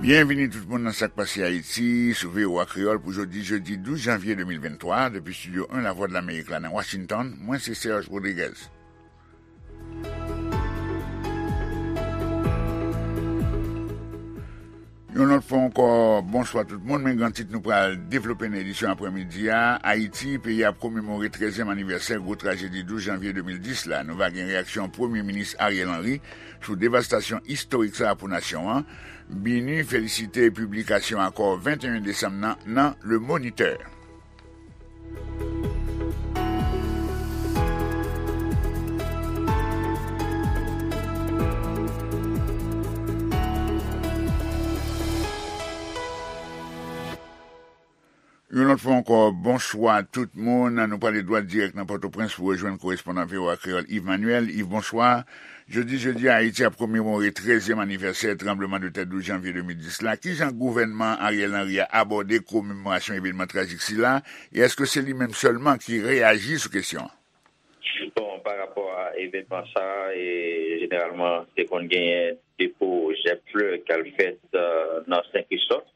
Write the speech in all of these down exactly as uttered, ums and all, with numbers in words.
Byenvini tout moun nan Sa k Pase Ayiti sou V O A Kreyòl pou jodi, jedi douz janvye de mil venntwa, depi Estidyo en Lavwadlamerik la nan Washington. Mwen se Serge Rodriguez. Yon lòt fwa ankò, bonswa tout moun. Men gran tit nou pral devlope nan edisyon aprèmidi a. Ayiti, peyi a ap komemore trèzyèm anivèsè gwo trajedi douz janvye de mil dis la. Nou va gen reyaksyon Premye Minis Ariel Henry sou devastasyon istorik sa a pou nasyon an. BINUH felisite piblikasyon akò venteyen desanm nan nan Le Moniteur. Yon lòt fwa ankò, bonswa tout moun. Nou prale dwat dirèk nan Pòtoprens pou rejwenn korespondan V O A Kreyòl Yves Manuel. Yves, bonswa. Jodi, jedi a, Ayiti ap komemore trèzyèm anivèsè tranblemanntè douz janvye de mil dis la. Kijan gouvènman Ariel Henry a abòde komemorasyon evènman trajik sila? E èske se li menm sèlman ki reyaji sou kesyon an? Bon, pa rapò a evènman sa a, e, jeneralman, te konn genyen depo jèb flè k al fèt, e, nan Sen Kristòf.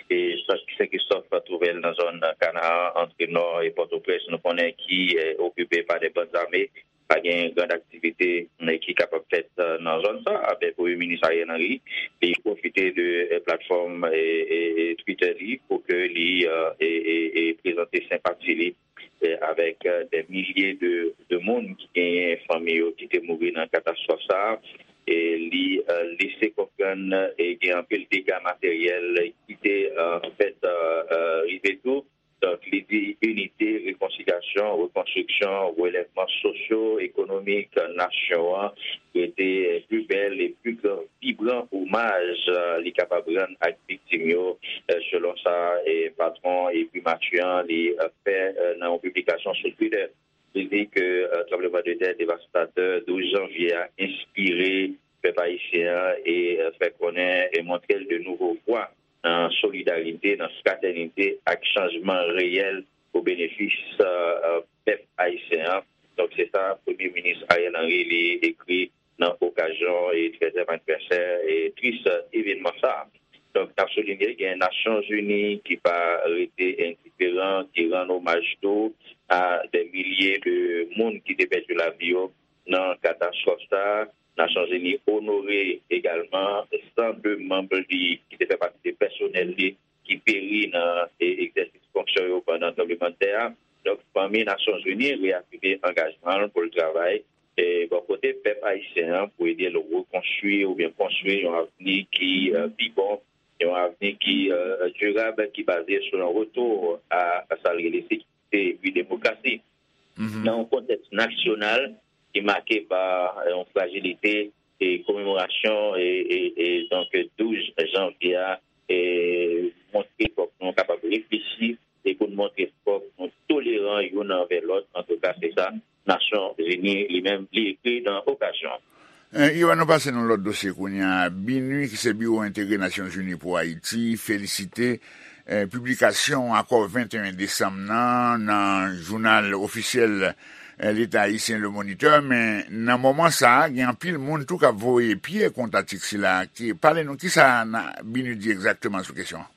E Sen Kristòf twouve l nan zòn Kanaan, antre Nò e Pòtoprens, nou konnen ki, e, okipe pa de bann zame. Pa gen gran aktivite, e, ki kapab fèt, e, nan zòn sa a. Men Premye Minis Ariel Henry, li pwofite de, e, platfòm, e, e, e Twitter li pou ke li, e, e, e, e prezante senpati li, e, avèk, e, dè milye de, de moun ki genyen fanmi yo ki te mouri nan katastwòf sa a. E li, e, lese konprann, e, gen anpil dega materyèl ki te, e, fèt, e, e, rive tou. Donk, li di inite, rekonsilyasyon, rekonstriksyon, relèvman sosyo-ekonomik nasyon an rete pli bèl e pli gran, vibran omaj, e, li kapab rann ak viktim yo, e, selon sa, e, patwon e primati an li, e, fè, e, nan yon piblikasyon sou Twitter. Li di ke, e, tranblemanntè devastatè douz janvye a enspire pèp ayisyen an e, e, fè konnen e montre l de nouvo vwa nan solidarite, nan fratènite ak chanjman reyèl o benefis, e, e, pèp ayisyen an. Donk, se sa Premye Minis Ariel Henry li ekri nan okazyon e trèzyèm anivèsè e tris, e, evènman sa a. Donk, n ap soulinye gen Nasyonzini ki pa rete endiferan, ki rann omaj tou a dè milye de moun ki te pèdi lavi yo nan katastwòf sa a. Nasyonzini onore egalman san de manm li ki te fè pati de pèsonèl li ki peri nan, e, egzèsis fonksyon yo pandan tranblemanntè a. Donk, fanmi Nasyonzini reyafime angajman l pou l travay, e, bò kote pèp ayisyen an pou ede l rekonstwi oubyen konstwi yon avni ki, e, pi bon, yon avni ki, e, dirab, ki baze sou yon retou a, a sa l rele sekirite epi demokrasi. Mhm. Nan yon kontèks nasyonal ki make pa yon frajilite, e komemorasyon e, e, e donk douz janvye a, e montre fòk nou kapab reflechi e pou n montre fòk nou toleran youn anvè lòt. Antouka, se sa Nasyonzini li menm li ekri nan okazyon an. E, Ivan, nou pase nan lòt dosye kounye a. BINUH, ki se Biwo Entegre Nasyonzini pou Ayiti, felisite, e, piblikasyon akò venteyen desanm nan, nan jounal ofisyèl, e, Leta ayisyen, Le Moniteur. Men, nan moman sa a, gen anpil moun tou k ap voye pye kont atik sila. Ki, pale nou, kisa BINUH di egzakteman sou kesyon an?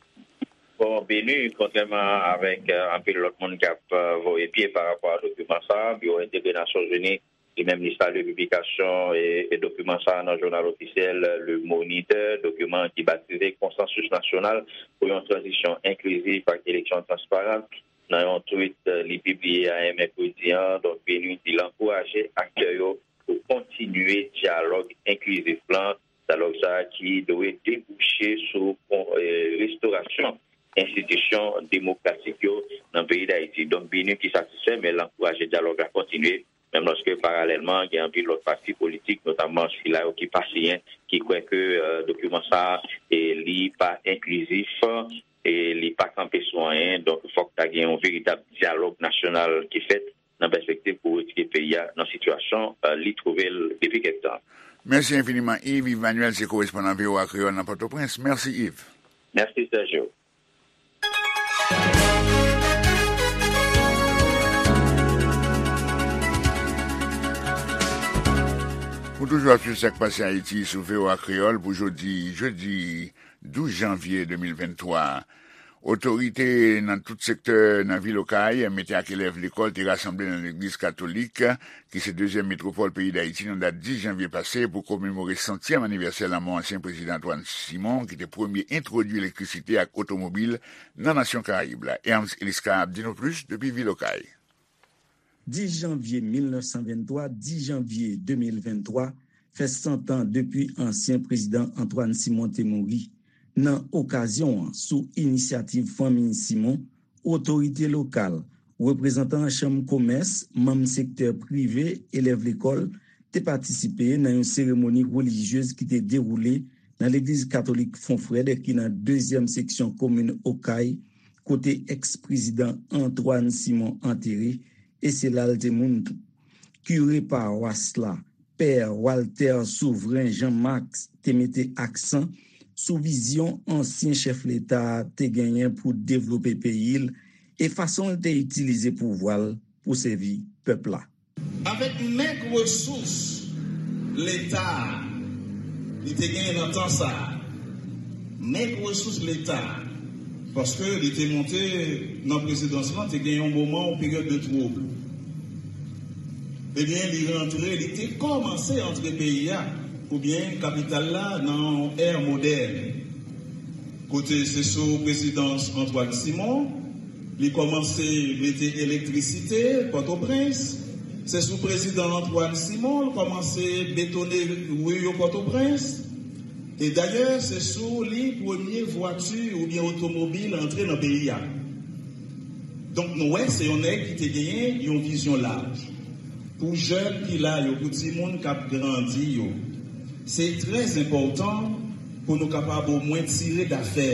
Bon, BINUH, kontrèman avèk, e, anpil lòt moun k ap, e, voye pye pa rapò a dokiman sa a, Biwo Entegre Nasyonzini, li menm, li salye piblikasyon e, e dokiman sa a nan jounal ofisyèl Le Moniteur, dokiman ki batize Konsansis Nasyonal pou yon Tranzisyon Enklizif ak Eleksyon Transparan. Nan yon tweet, e, li pibliye ayè mèkredi an, donk, BINUH di l ankouraje aktè yo pou kontinye dyalòg enklizif lan, dyalòg sa a ki dwe debouche sou, e, restorasyon enstitisyon demokratik yo nan peyi Dayiti. Donk, BINUH ki satisfè, men l ankouraje dyalòg la kontinye, menm lòske paralèlman, gen anpil lòt pati politik, notamman sila yo ki pa siyen, ki kwè ke, e, dokiman sa a, e, li pa enklizif, e li pa kanpe sou anyen. Donk, fòk ta gen yon veritab dyalòg nasyonal ki fèt nan pèspektiv pou retire peyi a nan sitiyasyon, e, li twouve l depi kèk tan. Mèsi enfiniman, Yves. Yves Manuel se korespondan V O A Kreyòl nan Pòtoprens. Mèsi, Yves. Mèsi, Sergio. Ou toujou ap swiv Sa k Pase Ayiti sou V O A Kreyòl pou jodi, jedi douz janvye de mil venntwa. Otorite nan tout sektè nan vil Okay mete ak elèv lekòl te rasanble nan legliz katolik, ki se dezyèm metwopòl peyi Dayiti, nan dat dis janvye pase pou komemore santyèm anivèsè lanmò ansyen prezidan Antoine Simon, ki te premye entwodui elektrisite ak otomobil nan nasyon Karayib la. Ernst Eliscar ap di nou plis depi vil Okay. Dis janvye mil nèf san venntwa, dis janvye de mil venntwa, fè san tan depi ansyen prezidan Antoine Simon te mouri. Nan okazyon an, sou inisyativ fanmi Simon, otorite lokal, reprezantan chanm komès, manm sektè prive, elèv lekòl, te patisipe nan yon seremoni relijyez ki te dewoule nan legliz katolik Fon Frèd, ki nan dezyèm seksyon komin Okay, kote èks-prezidan Antoine Simon antere, e se la l te moun tou. Kire pawas la, pè Walter Souvren Jean Max, te mete aksan sou vizyon ansyen chèf leta a te genyen pou devlope peyi l e fason l te itilize pouvwa l pou sèvi pèp la. Avèk mèg resous leta a li te genyen nan tan sa a, mèg resous leta a, paske li te monte nan prezidans lan, te gen yon moman, yon peryòd de twoub. Ebyen, li rantre, li te kòmanse antre peyi a, oubyen kapital la, nan yon è modèn. Kote se sou prezidans Antoine Simon, li kòmanse mete elektrisite Pòtoprens. Se sou prezidan Antoine Simon, l kòmanse betone ri yo Pòtoprens. E dayè, se sou li premye vwati oubyen otomobil antre nan peyi a. Donk, nou wè, se yon nèg ki te genyen yon vizyon laj. Pou jèn ki la yo, pou timoun k ap grandi yo, se trè enpòtan pou nou kapab omwen tire dafè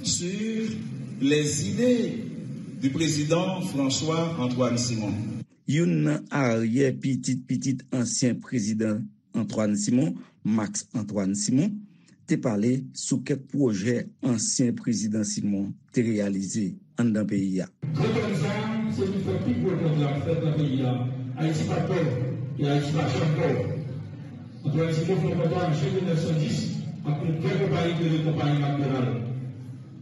sur les idées du président François Antoine Simon. Youn nan aryè pitit pitit ansyen prezidan Antoine Simon, Max Antoine Simon, te pale sou kèk pwojè ansyen prezidan Simon te reyalize anndan peyi a. Gwo konn sa, se li fè pi gwo konn la fèt nan peyi a. Ayiti pa pòv, e Ayiti pa janm pòv. Antoine Simon fè yon kontra an jen mil nèf san dis ak yon gran konpayi ki rele konpayi McDonald.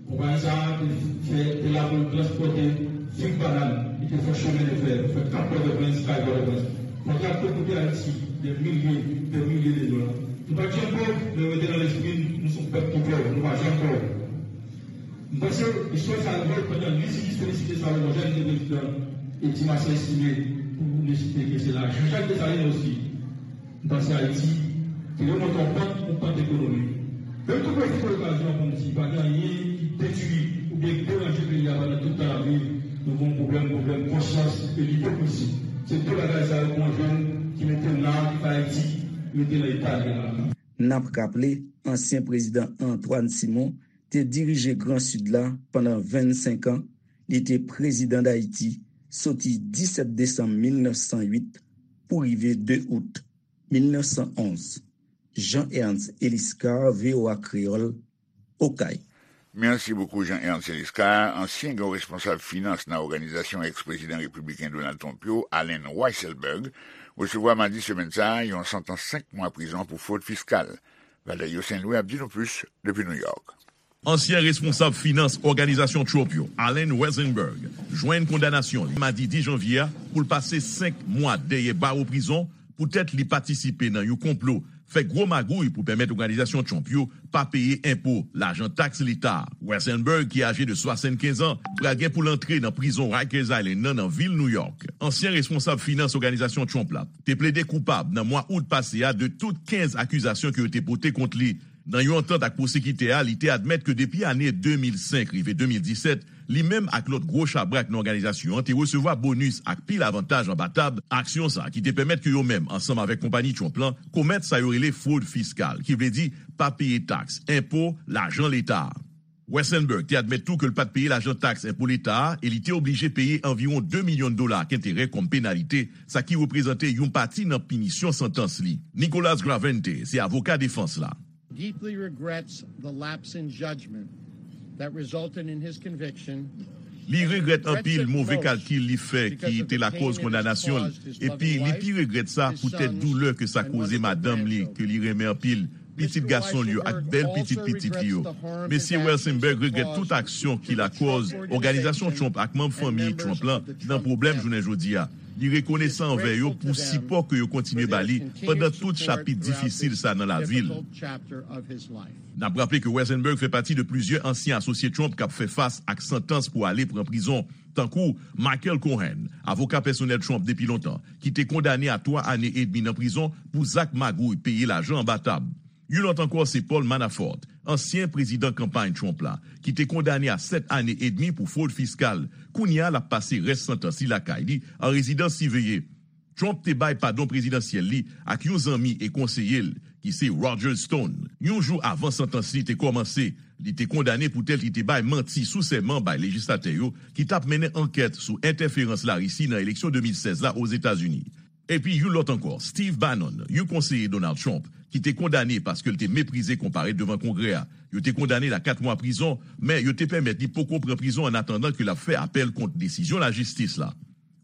Konpayi sa a te fè, te la pou l transpòte fig banann, li te fè chemen de fè, fè Kap Pòtoprens, kay Pòtoprens. Kontra te koute Ayiti dè milye, dè milye de dola. Nou pa t janm pòv, men rete nan lespri n, nou se yon pèp ki pòv, nou pa janm pòv. M panse istwa sa a revòl pandan li, si jis felisite Salomon Jèn ki te prezidan, e Ti Masyè Estimé pou nou site ke se la, Jean-Jacques Dessalines osi. M panse Ayiti te remonte yon pant, yon pant ekonomik. Men m tou pwofite okazyon an pou m di, pa gen anyen ki detwi oubyen ki deranje peyi a pandan tout tan l ap viv. Nou gen yon pwoblèm, pwoblèm konsyans e lipokrizi. Se de bagay sa yo pou yon jèn ki mete l la, ki fè Ayiti rete nan eta l ye la. N ap raple, ansyen prezidan Antoine Simon te dirije Gran Sid la pandan vennsenk an, li te prezidan Dayiti soti disèt desanm mil nèf san uit pou rive de out mil nèf san onz. Jean Ernst Eliscar, V O A Kreyòl, Okay. Mèsi bokou, Jean Ernst Eliscar, ansyen gran responsab finans nan òganizasyon èks-prezidan repibliken Donald Trump yo, Allen Weisselberg, resevwa madi semèn sa a yon santans senk mwa prizon pou fwod fiskal. Valerio Saint-Louis ap di nou plis depi New York. Ansyen responsab finans òganizasyon Trump yo, Allen Weisselberg, jwenn kondanasyon li madi dis janvye a pou l pase senk mwa dèyè bawo prizon poutèt li patisipe nan yon konplo fè gwo magouy pou pèmèt òganizasyon Trump yo pa peye enpo, lajan taks leta a. Weisselberg, ki aje de swasannkenz an, pral gen pou l antre nan prizon Rikers Island nan, nan vil New York. Ansyen responsab finans òganizasyon Trump la te plede koupab nan mwa out pase a de tout kenz akizasyon ke yo te pote kont li. Nan yon antant ak pwosekitè a, li te admèt ke depi ane de mil senk rive de mil disèt, li menm ak lòt gwo chabrak nan òganizasyon an te resevwa bonis ak pil avantaj anba tab aksyon sa ki te pèmèt ke yo menm, ansanm avèk konpayi Trump lan, komèt sa yo rele fwod fiskal, ki vle di pa peye taks, enpo, lajan leta a. Weisselberg te admèt tou ke l pa t peye lajan taks enpo leta a e li te oblije peye anviwon de milyon dola ak enterè kòm penalite, sa ki reprezante yon pati nan pinisyon santans li. Nicholas Gravente se avoka defans la. Deeply regrets the lapse in judgment that resulted in his conviction. Li regrèt anpil move kalkil li fè ki te lakòz kondanasyon l, epi li pi regrèt sa poutèt doulè ke sa koze madanm li ke li renmen anpil, pitit gason l yo ak bèl pitit pitit li yo. Mesye Weisselberg regrèt tout aksyon ki lakòz òganizasyon Trump ak manm fanmi Trump lan nan pwoblèm jounen jodi a. Li rekonesan anvè yo pou sipò ke yo kontinye ba li pandan tout chapit difisil sa nan lavi l. N ap raple ke Weisselberg fè pati de plizyè ansyen asosye Trump k ap fè fas ak santans pou ale pran prizon, tankou Michael Cohen, avoka pèsonèl Trump depi lontan, ki te kondane a twa ane edmi nan prizon pou zak magouy peye lajan anba tab. Yon lòt ankò se Paul Manafort, ansyen prezidan kanpay Trump la, ki te kondane a sèt ane edmi pou fwod fiskal. Kounye a, l ap pase rès santans li lakay li, an rezidans siveye. Trump te bay padon prezidansyèl li ak yon zanmi e konseye l, ki se Roger Stone. Yon jou avan santans li te kòmanse, li te kondane poutèt li te bay manti sou sèman bay lejislatè yo ki t ap mennen ankèt sou entèferans Larisi nan eleksyon de mil sèz la Ozetazini. Epi yon lòt ankò, Steve Bannon, yon konseye Donald Trump, ki te kondane paske l te meprize konparèt devan Kongrè a. Yo te kondane l a kat mwa prizon, men yo te pèmèt li poko pran prizon annatandan ke l ap fè apèl kont desizyon lajistis la.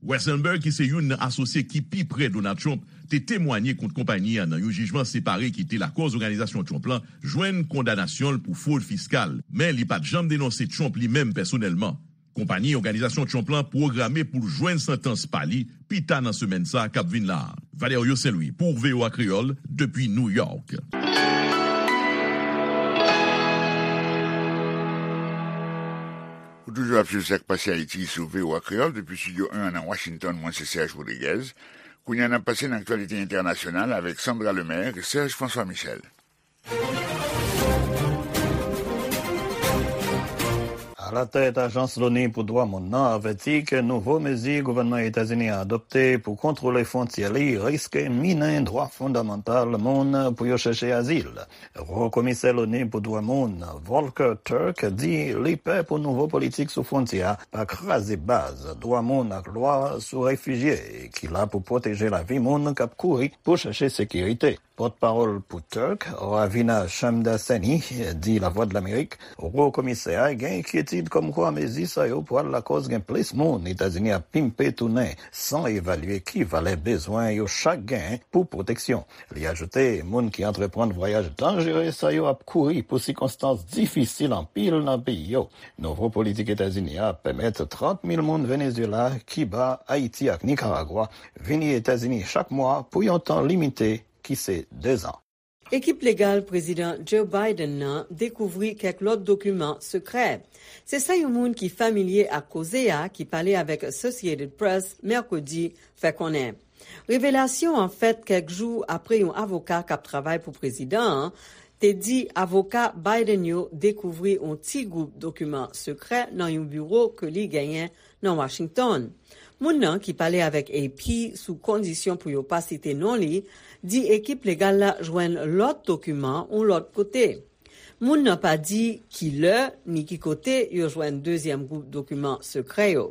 Weisselberg, ki se youn nan asosye ki pi prè Donald Trump, te temwanye kont konpayi a nan yon jijman separe ki te lakòz òganizasyon Trump lan jwenn kondanasyon l pou fwod fiskal, men li pa t janm denonse Trump li menm pèsonèlman. Konpayi òganizasyon Trump lan pwograme pou l jwenn santans pa li pi ta nan semèn sa a k ap vin la a. Valerio Saint-Louis pou V O A Kreyòl, depi New York. Ou toujou ap swiv Sa k Pase Ayiti sou V O A Kreyòl depi Estidyo en an nan Washington. Mwen se Serge Rodriguez. Kounye a, n ap pase nan aktyalite entènasyonal avèk Sandra Lemaire e Serge François Michel. Alatèt Ajans Loni pou Dwa Moun nan avèti ke nouvo mezi gouvènman Etazini a adopte pou kontwole fwontyè li riske minen dwa fondamantal moun pou yo chèche azil. Wo Komisè Loni pou Dwa Moun, Volker Turk, di li pè pou nouvo politik sou fwontyè a pa kraze baz dwa moun ak lwa sou refijye ki la pou pwoteje lavi moun k ap kouri pou chèche sekirite. Pòtpawòl pou Turk, Ravina Shamdasani, di Lavwadlamerik, Wo Komisè a gen enkyetid kòmkwa mezi sa yo pral lakòz gen plis moun Etazini ap pimpe tounen san evalye ki valè bezwen yo chak gen pou pwoteksyon. Li ajoute, moun ki antreprann vwayaj danjere sa yo ap kouri pou sikonstans difisil anpil nan peyi yo. Nouvo politik Etazini a ap pèmèt trant mil moun Venezyela, Kiba, Ayiti ak Nikaragwa vini Etazini chak mwa pou yon tan limite ki se dezan. Ekip legal Prezidan Joe Biden nan dekouvri kèk lòt dokiman sekrè. Se sa yon moun ki familye ak koze a, ki pale avèk Associated Press mèkredi, fè konnen. Revelasyon an fèt kèk jou apre yon avoka k ap travay pou prezidan an te di avoka Biden yo dekouvri yon ti gwoup dokiman sekrè nan yon biwo ke li genyen nan Washington. Moun nan ki pale avèk A P sou kondisyon pou yo pa site non li, di ekip legal la jwenn lòt dokiman yon lòt kote. Moun nan pa di ki lè ni ki kote yo jwenn dezyèm gwoup dokiman sekrè yo.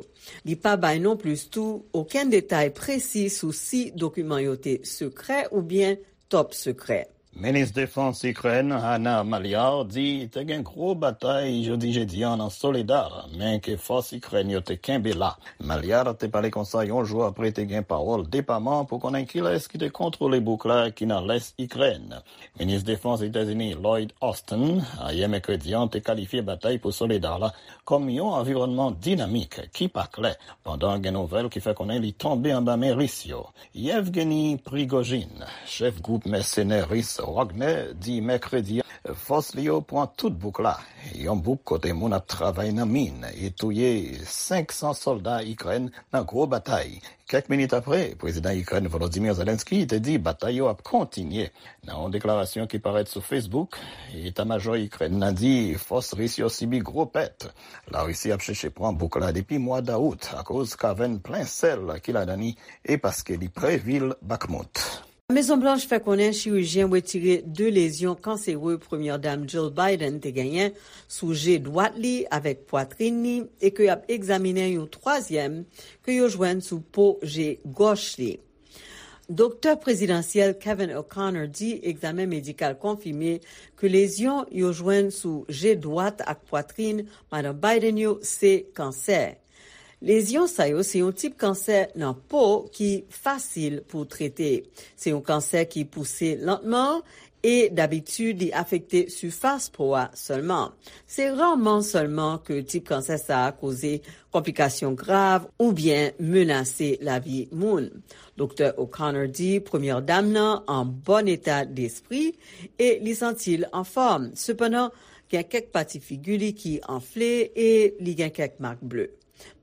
Li pa bay non plis tou okenn detay presi sou si dokiman yo te sekrè oubyen top sekrè. Minis Defans Ikrèn, Hanna Maliar, di te gen gwo batay jodi jedi an nan Soledar, men ke fòs Ikrèn yo te kenbe la. Maliar te pale konsa yon jou apre te gen pawòl depaman pou konnen kilès ki te kontwole bouk la ki nan lès Ikrèn. Minis Defans Etazini Lloyd Austin, ayè mèkredi an, te kalifye batay pou Soledar la kòm yon anviwònman dinamik ki pa klè, pandan gen nouvèl ki fè konnen li tonbe anba men Ris yo. Yevgeny Prigozhin, chèf gwoup mèsenè ris Wagner, di mèkredi a, fòs li yo pran tout bouk la, yon bouk kote moun ap travay nan min, e touye senk san sòlda Ikrèn nan gwo batay. Kèk minit apre, prezidan Ikrèn Volodymyr Zelensky te di batay yo ap kontinye. Nan yon deklarasyon ki parèt sou Facebook, eta majò Ikrèn nan di fòs ris yo sibi gwo pèt. Larisi ap chèche pran bouk la depi mwa dawout akoz kavèn plen sèl ki ladan li e paske li pre vil Bakhmut. Mezon Blanch fè konnen chirijyen retire de lezyon kansere Premyè Dam Jill Biden te genyen sou je dwat li avèk pwatrin li e ke y ap egzaminen yon twazyèm ke yo jwenn sou po je gòch li. Doktè prezidansyèl Kevin O'Connor di egzamen medikal konfime ke lezyon yo jwenn sou je dwat ak pwatrin Madan Biden yo se kansè. Lezyon sa yo se yon tip kansè nan po ki fasil pou trete. Se yon kansè ki pouse lantman e dabitid li afekte sifas po a sèlman. Se raman sèlman ke tip kansè sa a koze konplikasyon grav oubyen menase lavi moun. Doktè O'Connor di premyè dam nan an bòn eta despri e li santi l anfòm. Sepandan, gen kèk pati figi li ki anfle e li gen kèk mak ble.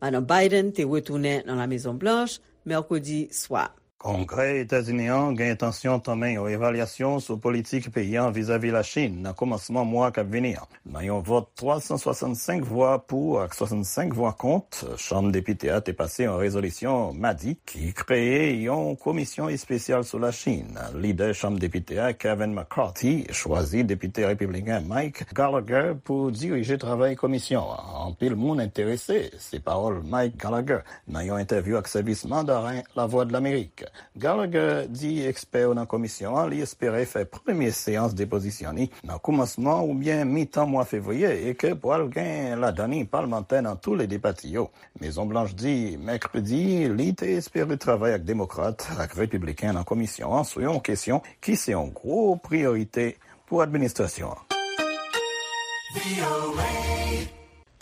Madan Biden te retounen nan La Mezon Blanch mèkredi swa. Kongrè Etazini an gen entansyon tanmen yon evalyasyon sou politik peyi an vizavi Lachin nan kòmansman mwa k ap vini an. Nan yon vòt twa san swasannsenk vwa pou ak swasannsenk vwa kont, Chanm Depite a te pase yon rezolisyon madi ki kreye yon komisyon espesyal sou Lachin. Lidè Chanm Depite a, Kevin McCarthy, chwazi Depite Repibliken Mike Gallagher pou dirije travay komisyon an. Anpil moun enterese, se pawòl Mike Gallagher nan yon entèvyou ak sèvis Mandaren Lavwadlamerik. Gallagher di ekspè yo nan komisyon an li espere fè premye seyans depozisyon li nan koumansman oubyen mitan mwa fevriye e ke pral gen ladan li palmantè nan tou le de pati yo. Mezon Blanch di mèkredi li te espere travay ak demokrat ak repibliken nan komisyon an sou yon kesyon ki se yon gwo priyorite pou administrasyon an.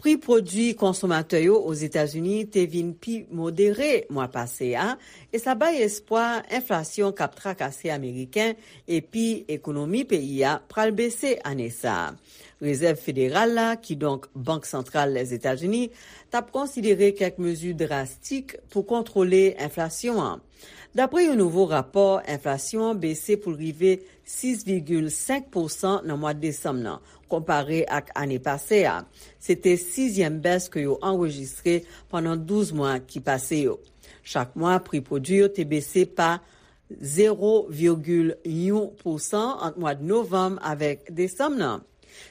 Pri pwodui konsomatè yo Ozetazini te vin pi modere mwa pase a, e sa bay espwa enflasyon k ap trakase Ameriken epi ekonomi peyi a pral bese ane sa a. Rezèv Federal la, kidonk Bank Santral Lèzetazini, t ap konsidere kèk mezi drastik pou kontwole enflasyon an. Dapre yon nouvo rapò, enflasyon an bese pou l rive sis vigil senk pousan nan mwa desanm nan, konpare ak ane pase a. Se te sizyèm bès ke yo anrejistre pandan douz mwa ki pase yo. Chak mwa, pri pwodui yo te bese pa zewo vigil yon pousan ant mwa novanm avèk desanm nan.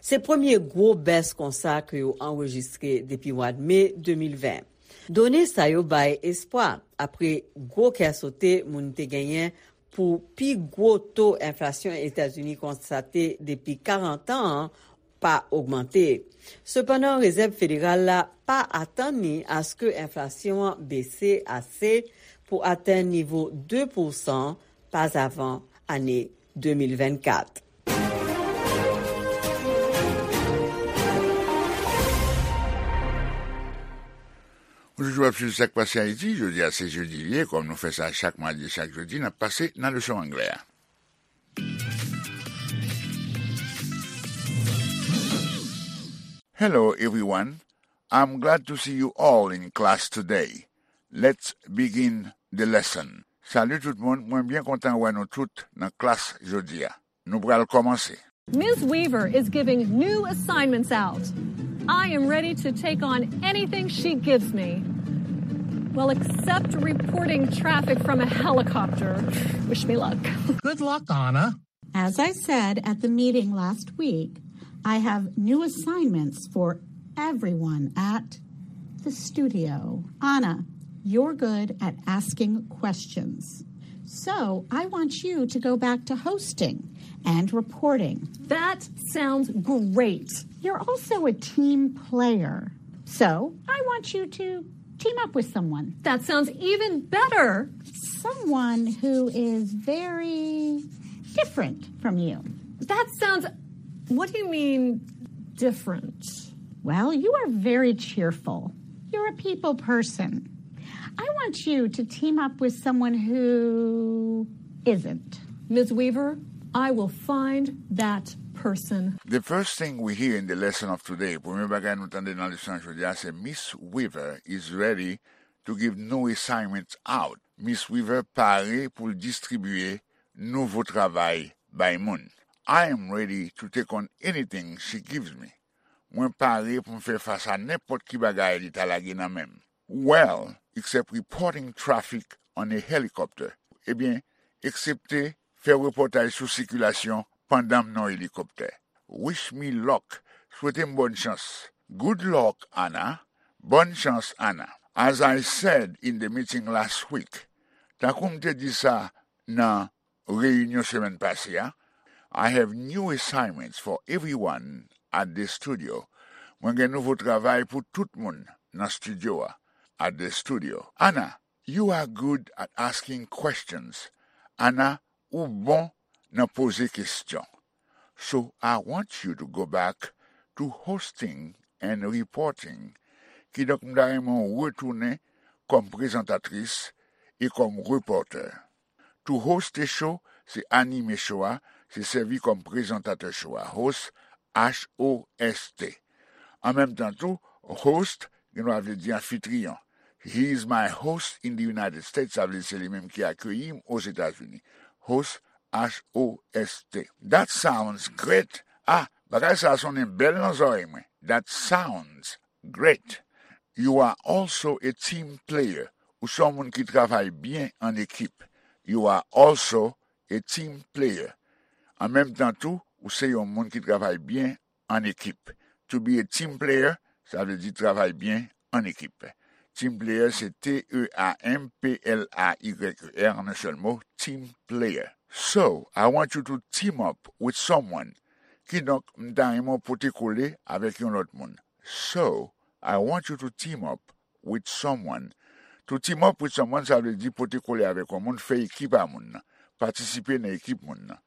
Se premye gwo bès konsa ke yo anrejistre depi mwa me de mil ven. Done sa yo bay espwa, apre gwo kè sote moun te genyen pou pi gwo to enflasyon Etazini konstate depi karant an an pa ogmante. Sepandan, Rezèv Federal la pa atann ni aske enflasyon an bese ase pou atenn nivo de pousan pazavan ane de mil vennkat. Ou toujou ap swiv Sa k Pase Ayiti. Jodi a se jedi li ye, kòm nou fè sa chak madi e chak jedi, n ap pase nan leson anglè a. Hello, everyone. I'm glad to see you all in class today. Let's begin the lesson. Salut tout moun, mwen byen kontan wè nou tout nan klas jodi a. Nou pral kòmanse. Miz Weaver is giving new assignments out. I am ready to take on anything she gives me. Well, except reporting traffic from a helicopter. Wish me luck. Good luck, Anna. As I said at the meeting last week, I have new assignments for everyone at the studio. Anna, you're good at asking questions. So I want you to go back to hosting and reporting. That sounds great. You're also a team player. So I want you to team up with someone. That sounds even better. Someone who is very different from you. That sounds. What do you mean, different? Well, you are very cheerful. You're a people person. I want you to team up with someone who isn't. Miz Weaver, I will find that person. The first thing we hear in the lesson of today, premye bagay nou tande nan leson an jodi a, se Miss Weaver is ready to give new assignments out. Miss Weaver pare pou l distribye nouvo travay bay moun. I am ready to take on anything she gives me. Mwen pare pou m fè fas a nenpòt ki bagay li ta lage nan men m. Well, except reporting traffic on a helicopter. Ebyen, eksepte fè repòtaj sou sikilasyon pandan m nan yon elikoptè. Wish me luck. Swete m bòn chans. Good luck, Anna. Bòn chans, Anna. As I said in the meeting last week, tankou m te di sa nan reyinyon semèn pase a, I have new assignments for everyone at the studio. Mwen gen nouvo travay pou tout moun nan estidyo a. at the studio. Anna, you are good at asking questions. Anna, ou bon nan poze kesyon. So I want you to go back to hosting and reporting. Kidonk, m ta renmen w retounen kòm prezantatris e kòm repòtè. To host a show, se anime show a, se sèvi kòm prezantatè show a. Host, H O S T. An menm tan tou, host, gen dwa vle di anfitriyon. He is my host in the United States, sa vle di se li menm ki akeyi m Ozetazini. Host, H O S T. That sounds great. Ah, bagay sa a sonnen bèl nan zòrèy mwen. That sounds great. You are also a team player. Ou se yon moun ki travay byen an ekip. You are also a team player. An menm tan tou, ou se yon moun ki travay byen an ekip. To be a team player, sa vle di travay byen an ekip. Team player, se T E A M P L A Y E R, an yon sèl mo, team player. So, I want you to team up with someone. Kidonk, m ta renmen w pote kole avèk yon lòt moun. So, I want you to team up with someone. To team up with someone, sa vle di pote kole avèk yon moun, fè ekip a moun nan, patisipe nan ekip moun nan.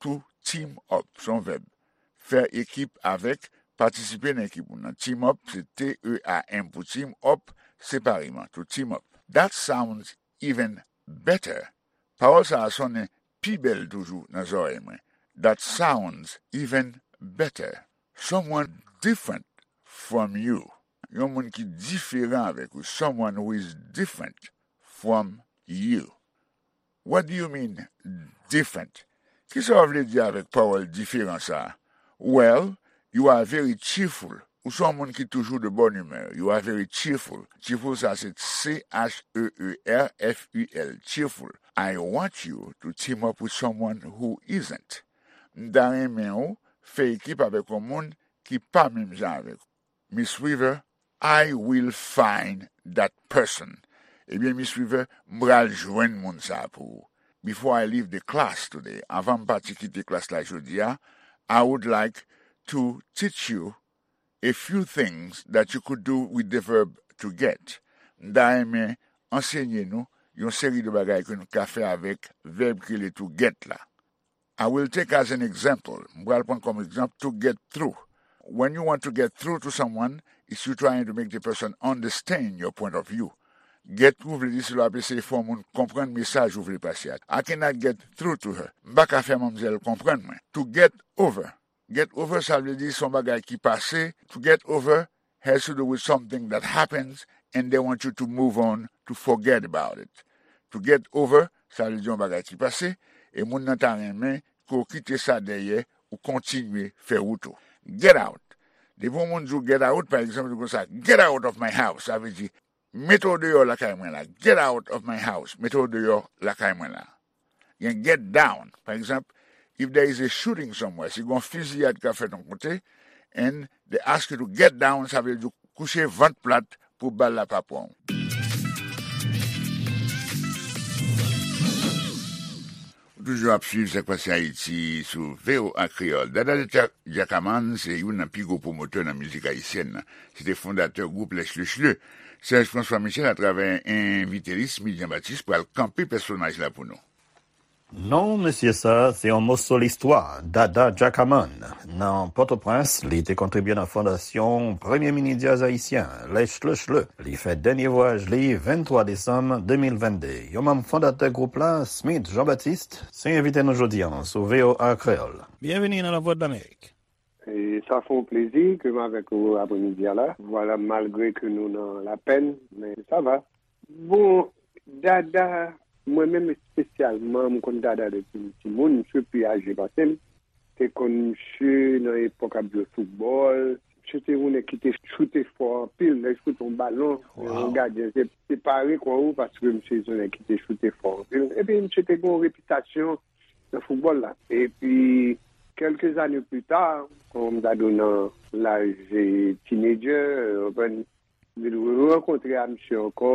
To team up, se yon vèb. Fè ekip avèk, patisipe nan ekip moun nan. Team up, se T E A M pou team, up, separeman. To team up. That sounds even better. Pawòl sa a sonnen pi bèl toujou nan zòrèy mwen. That sounds even better. Someone different from you. Yon moun ki diferan avèk ou. Someone who is different from you. What do you mean, different? Kisa w vle di avèk pawòl diferan sa a? Well, you are very cheerful. Ou se yon moun ki toujou de bonne humeur. You are very cheerful. Cheerful, sa se C H E E R F U L. Cheerful. I want you to team up with someone who isn't. M ta renmen w fè ekip avèk yon moun ki pa menm jan avèk ou. Miss Weaver, I will find that person. Ebyen, Miss Weaver, m pral jwenn moun sa a pou ou. Before I leave the class today, anvan m pati kite klas la jodi a, I would like to teach you a few things that you could do with the verb to get. M ta renmen ansenye nou yon seri de bagay ke nou ka fè avèk vèb ki rele to get la. I will take as an example, m pral pran kòm egzanp, to get through. When you want to get through to someone, it's you trying to make the person understand your point of view. Get through vle di se lè w ap eseye fè yon moun konprann mesaj ou vle pase a. I cannot get through to her. M pa ka fè manmzèl konprann mwen. To get over. Get over, sa vle di se yon bagay ki pase. To get over has to do with something that happens and they want you to move on, to forget about it. To get over, sa vle di yon bagay ki pase, e moun nan ta renmen ke w kite sa dèyè, ou kontinye fè wout ou. Get out. Depi yon moun di w get out, pa egzanp, li konsa, get out of my house, sa vle di, mete w deyò lakay mwen la. Get out of my house. Mete w deyò lakay mwen la. Gen get down. Pa egzanp, if there is a shooting somewhere, si gen yon fiziyad k ap fèt yon kote, and they ask you to get down, sa vle di kouche vant plat pou bal la pa pran w. Ou toujou ap swiv Sa k Pase Ayiti sou V O A Kreyòl. Dada Dja-, Djakaman se youn nan pi gwo pwomotè nan mizik ayisyèn nan. Se te fondatè gwoup Les Chleuchleux. Serge François Michel, atravè envite li, Smith Jean Baptiste, pral kanpe pèsonaj la pou nou. Non, mesye, sa se yon moso listwa, Dada Djakaman. Nan Pòtoprens, li te kontribye nan fondasyon premye mini djaz ayisyen, Les Chleuchleux. Li fè dènye vwayaj li venntwa desanm de mil vennde. Yon manm fondatè gwoup la, Smith Jean Baptiste, se envite nou jodi a sou V O A Kreyòl. Byenveni nan Lavwadlamerik. E sa fè yon plezi ke m avèk ou apremidi a la. Vwala, malgre ke nou nan lapèn, men sa va. Bon, Dada, mwen menm espesyalman, m konn Dada depi m timoun, misye pi aje pase m. Te konn misye nan epòk ap jwe foutbòl. Misye te yon nèg ki te choute fò anpil, lè l choute yon balon, yon gadyen te, te pare kò ou paske misye se yon nèg ki te choute fò anpil. Epi misye te gen yon repitasyon nan foutbòl la. Epi, kèlke zane pli ta, kòm m ta di w nan laj, e, teenager, ou konprann, m vin rankontre a misye ankò,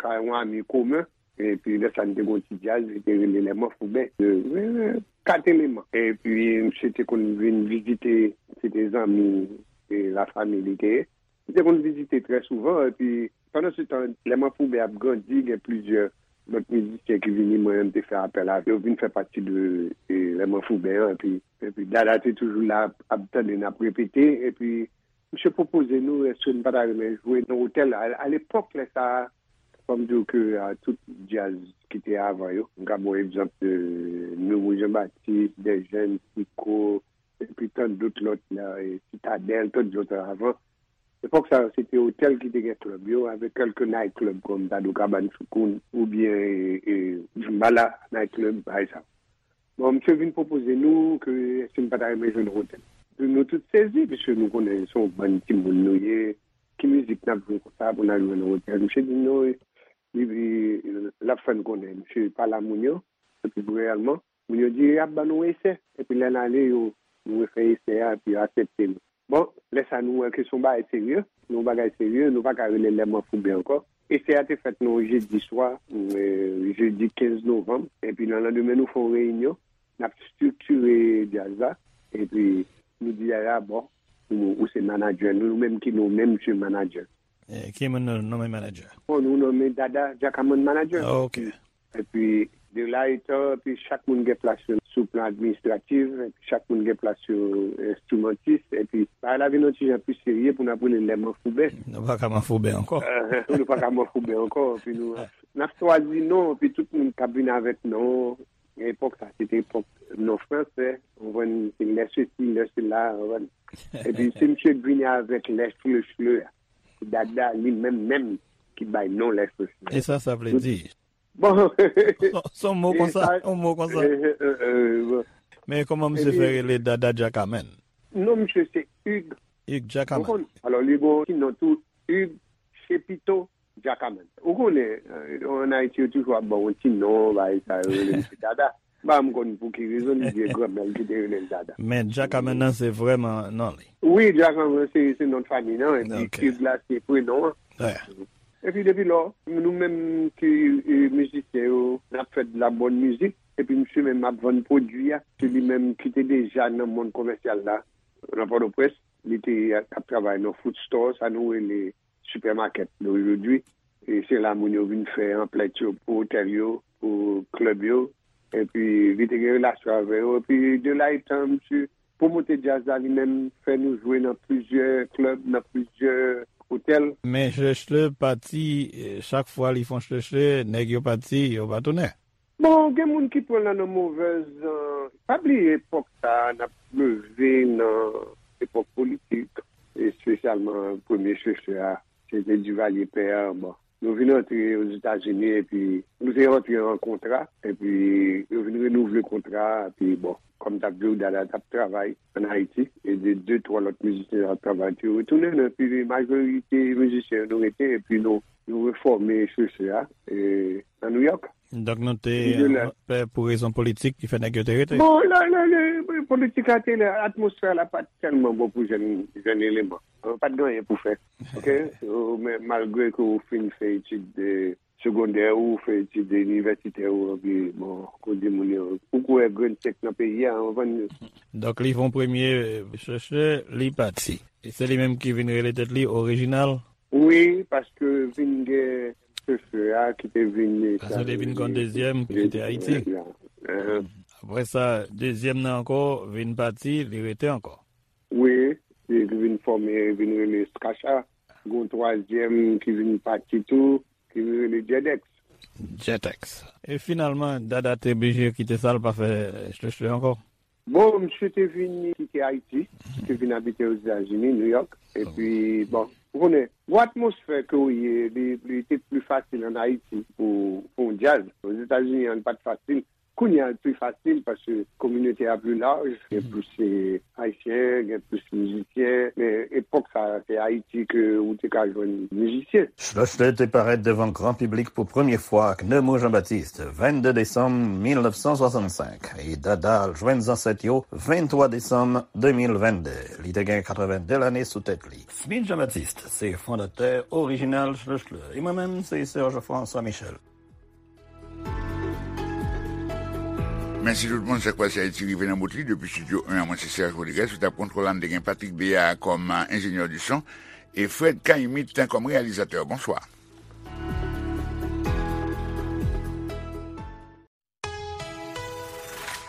kay yon ami komen. Epi, lè sa, n te gen yon ti djaz, li te rele Les Manfouben, de, e, Kat Eleman. Epi, misye te konn vin vizite, se te zanmi, e, lafanmi li te ye. M te konn vizite trè souvan, epi pandan se tan, Lè Manfouben ap grandi, gen plizyè lòt mizisyen ki vini, mwen menm te fè apèl a yo, vin fè pati de e, Lè Manfouben an, epi, epi Dada te toujou la ap, ap tande n ap repete, epi misye pwopoze nou, èske n pa ta renmen jwe nan otèl? A, alepòk, lè sa a, fò m di w ke a, tout djaz ki te avan yo, m ka ba w egzanp de Noumou Jean Baptiste, Dèjèn, Siko, epi tant dòt lòt la, e, Sitadèl, tant dòt avan. Epòk sa yo, se te otèl ki te gen klèb yo, avèk kèlke night club kòm Dadou Kabann Soukoun, oubyen e, e, Djimbala night club, bagay sa. Bon, misye vin pwopoze nou ke èske n pa ta renmen jwe nan otèl. Nou tout sezi, piske nou konnen se yon bann timoun nou ye, ki mizik n ap jwe konsa pou n al jwe nan otèl? Misye di nou, li, li, l ap fè n konnen, misye pale a moun yo, epi reyèlman, moun yo di y ap ban nou esè. Epi lè n ale, yo, nou refè esè a, epi yo aksepte nou. Bon, lè sa nou wè ke se yon bagay serye, se yon bagay serye, nou pa ka rele Lè Manfouben ankò. Esè a te fèt nan yon jedi swa, e, jedi kenz novanm, epi nan landemen nou fè yon reyinyon, n ap estrikire djaz la, epi nou di Dada, bon, ou, ou se manadjè nou, nou menm ki nonmen misye manadjè. E, ki moun nou nonmen manadjè? Bon, nou nonmen Dada Djakaman manadjè. Ah, ok. Epi, de la etan, epi chak moun gen plas yo sou plan administratif, epi chak moun gen plas yo enstrimantis, epi bagay la vin yon ti jan plis serye pou n ap rele Lè Manfouben. Nou pa ka Manfouben ankò. Nou pa ka Manfouben ankò, epi nou, n ap chwazi non, epi tout moun k ap vin avèk non. Epòk sa, se te epòk non fransè, ou konprann, se lè sesi, lè sela, ou konprann. Epi se misye k vini avèk Lè Chle Chle a. Se Dada li menm menm ki bay non Lè Chle Chle. E sa, sa vle di? Bon. Se yon mo konsa, yon mo konsa. Men kòman misye fè rele Dada Djakaman? Non, misye se Hugues. Hugues Djakaman. Ou konn, alò, li gen yon ti non tou, Hugues Chepito Djakaman. Ou konnen, e, ann Ayiti, yo toujou ap ba w yon ti non, bagay sa, yo rele misye Dada. M pa konn pou ki rezon, li di e granmè l ki te rele l Dada. Men Djakaman nan se vrèman non li. Wi, Djakaman se, se non fanmi nan, epi Hugues la se prenon an. Epi depi lò, nou menm ki, e, mizisyen yo, n ap fè de la bòn mizik, epi misye menm ap vann pwodui a, se li menm ki te deja nan mond komèsyal la, nan Pòtoprens, li te ap travay nan food store, sa nou rele sipèmakèt de ojodwi. E se la moun yo vin fè anplèt yo pou otèl yo, pou klèb yo. Epi li te gen relasyon avè yo. Epi de la etan, misye pwomote djaz la li menm, fè nou jwe nan plizyè klèb, nan plizyè otèl. Men Chle Chle pati, e, chak fwa li fè yon Chle Chle, nèg yo pati, yo pa tounen. Bon, gen moun ki pran l nan, nan movèz, e, pa bliye epòk sa a, n ap leve nan epòk politik, espesyalman premye Chle Chle a, se te Divalye pè a, bon. Nou vin antre Ozetazini, epi nou te antre an kontra, epi yo vin renouvle kontra a, epi bon, kòm m t ap di w, Dada t ap travay ann Ayiti, e de, de, twa lòt mizisyen t ap travay, epi yo retounen, epi majorite mizisyen yo nou rete, epi nou, nou refòme Chle Chle a, e, nan Nouyòk. Donk nou te, e, pè pou rezon politik ki fè nèg yo te rete? Bon, la, la, la, politik la te la, atmosfè la pa t tèlman bon pou jèn, jèn eleman. Pa t gen anyen pou fè. Oke? Ou, men malgre ke ou fin fè etid de segondè ou, fè etid inivèsitè ou, epi, bon, kote moun yo, ou kwè grenn sèk nan peyi a, ou konprann? Donk li fè yon premye, e, Chle Chle, li pati. E se li menm ki vin rele tèt li Orijinal? Wi, paske vin gen Chle Chle a ki te vin. Paske li te vin kon dezyèm ki kite Ayiti. Apre sa, dezyèm nan ankò vin pati, li rete ankò. Wi, li vin fòme, vin rele Skacha. Gen yon twazyèm ki vin pati tou, ki vin rele Djèdèks. Djèdèks. E finalman, Dada te blije kite sa, l pa fè Chle Chle ankò? Bon, misye te vin kite Ayiti, te vin abite Ozetazini, Nouyòk. Epi, bon, ou konnen, gwo atmosfè ke w ye, li, li te pli fasil ann Ayiti pou, pou yon djaz. Ozetazini an, li pa t fasil. Kounye a, li pi fasil paske kominote a pi laj, gen plis, e, Ayisyen, gen plis mizisyen. Men epòk sa a, se Ayiti ke ou te ka jwenn mizisyen. Chle Chle te parèt devan gran piblik pou premye fwa ak Noumou Jean Baptiste, vennde desanm mil nèf san swasannsenk, e Dada al jwenn zansèt yo venntwa desanm de mil vennde. Li te gen katrevennde lane sou tèt li. Smith Jean Baptiste se fondatè orijinal Chle Chle. E mwen menm, se Serge François Michel. Mèsi tout moun, Sa k Pase Ayiti rive nan bout li. Depi estidyo en an, mwen se Serge Rodriguez, sou tab kontwòl la, n te gen Patrick Béard kòm, a, enjenyè di son, e Fred Caillemette kòm reyalizatè. Bonswa.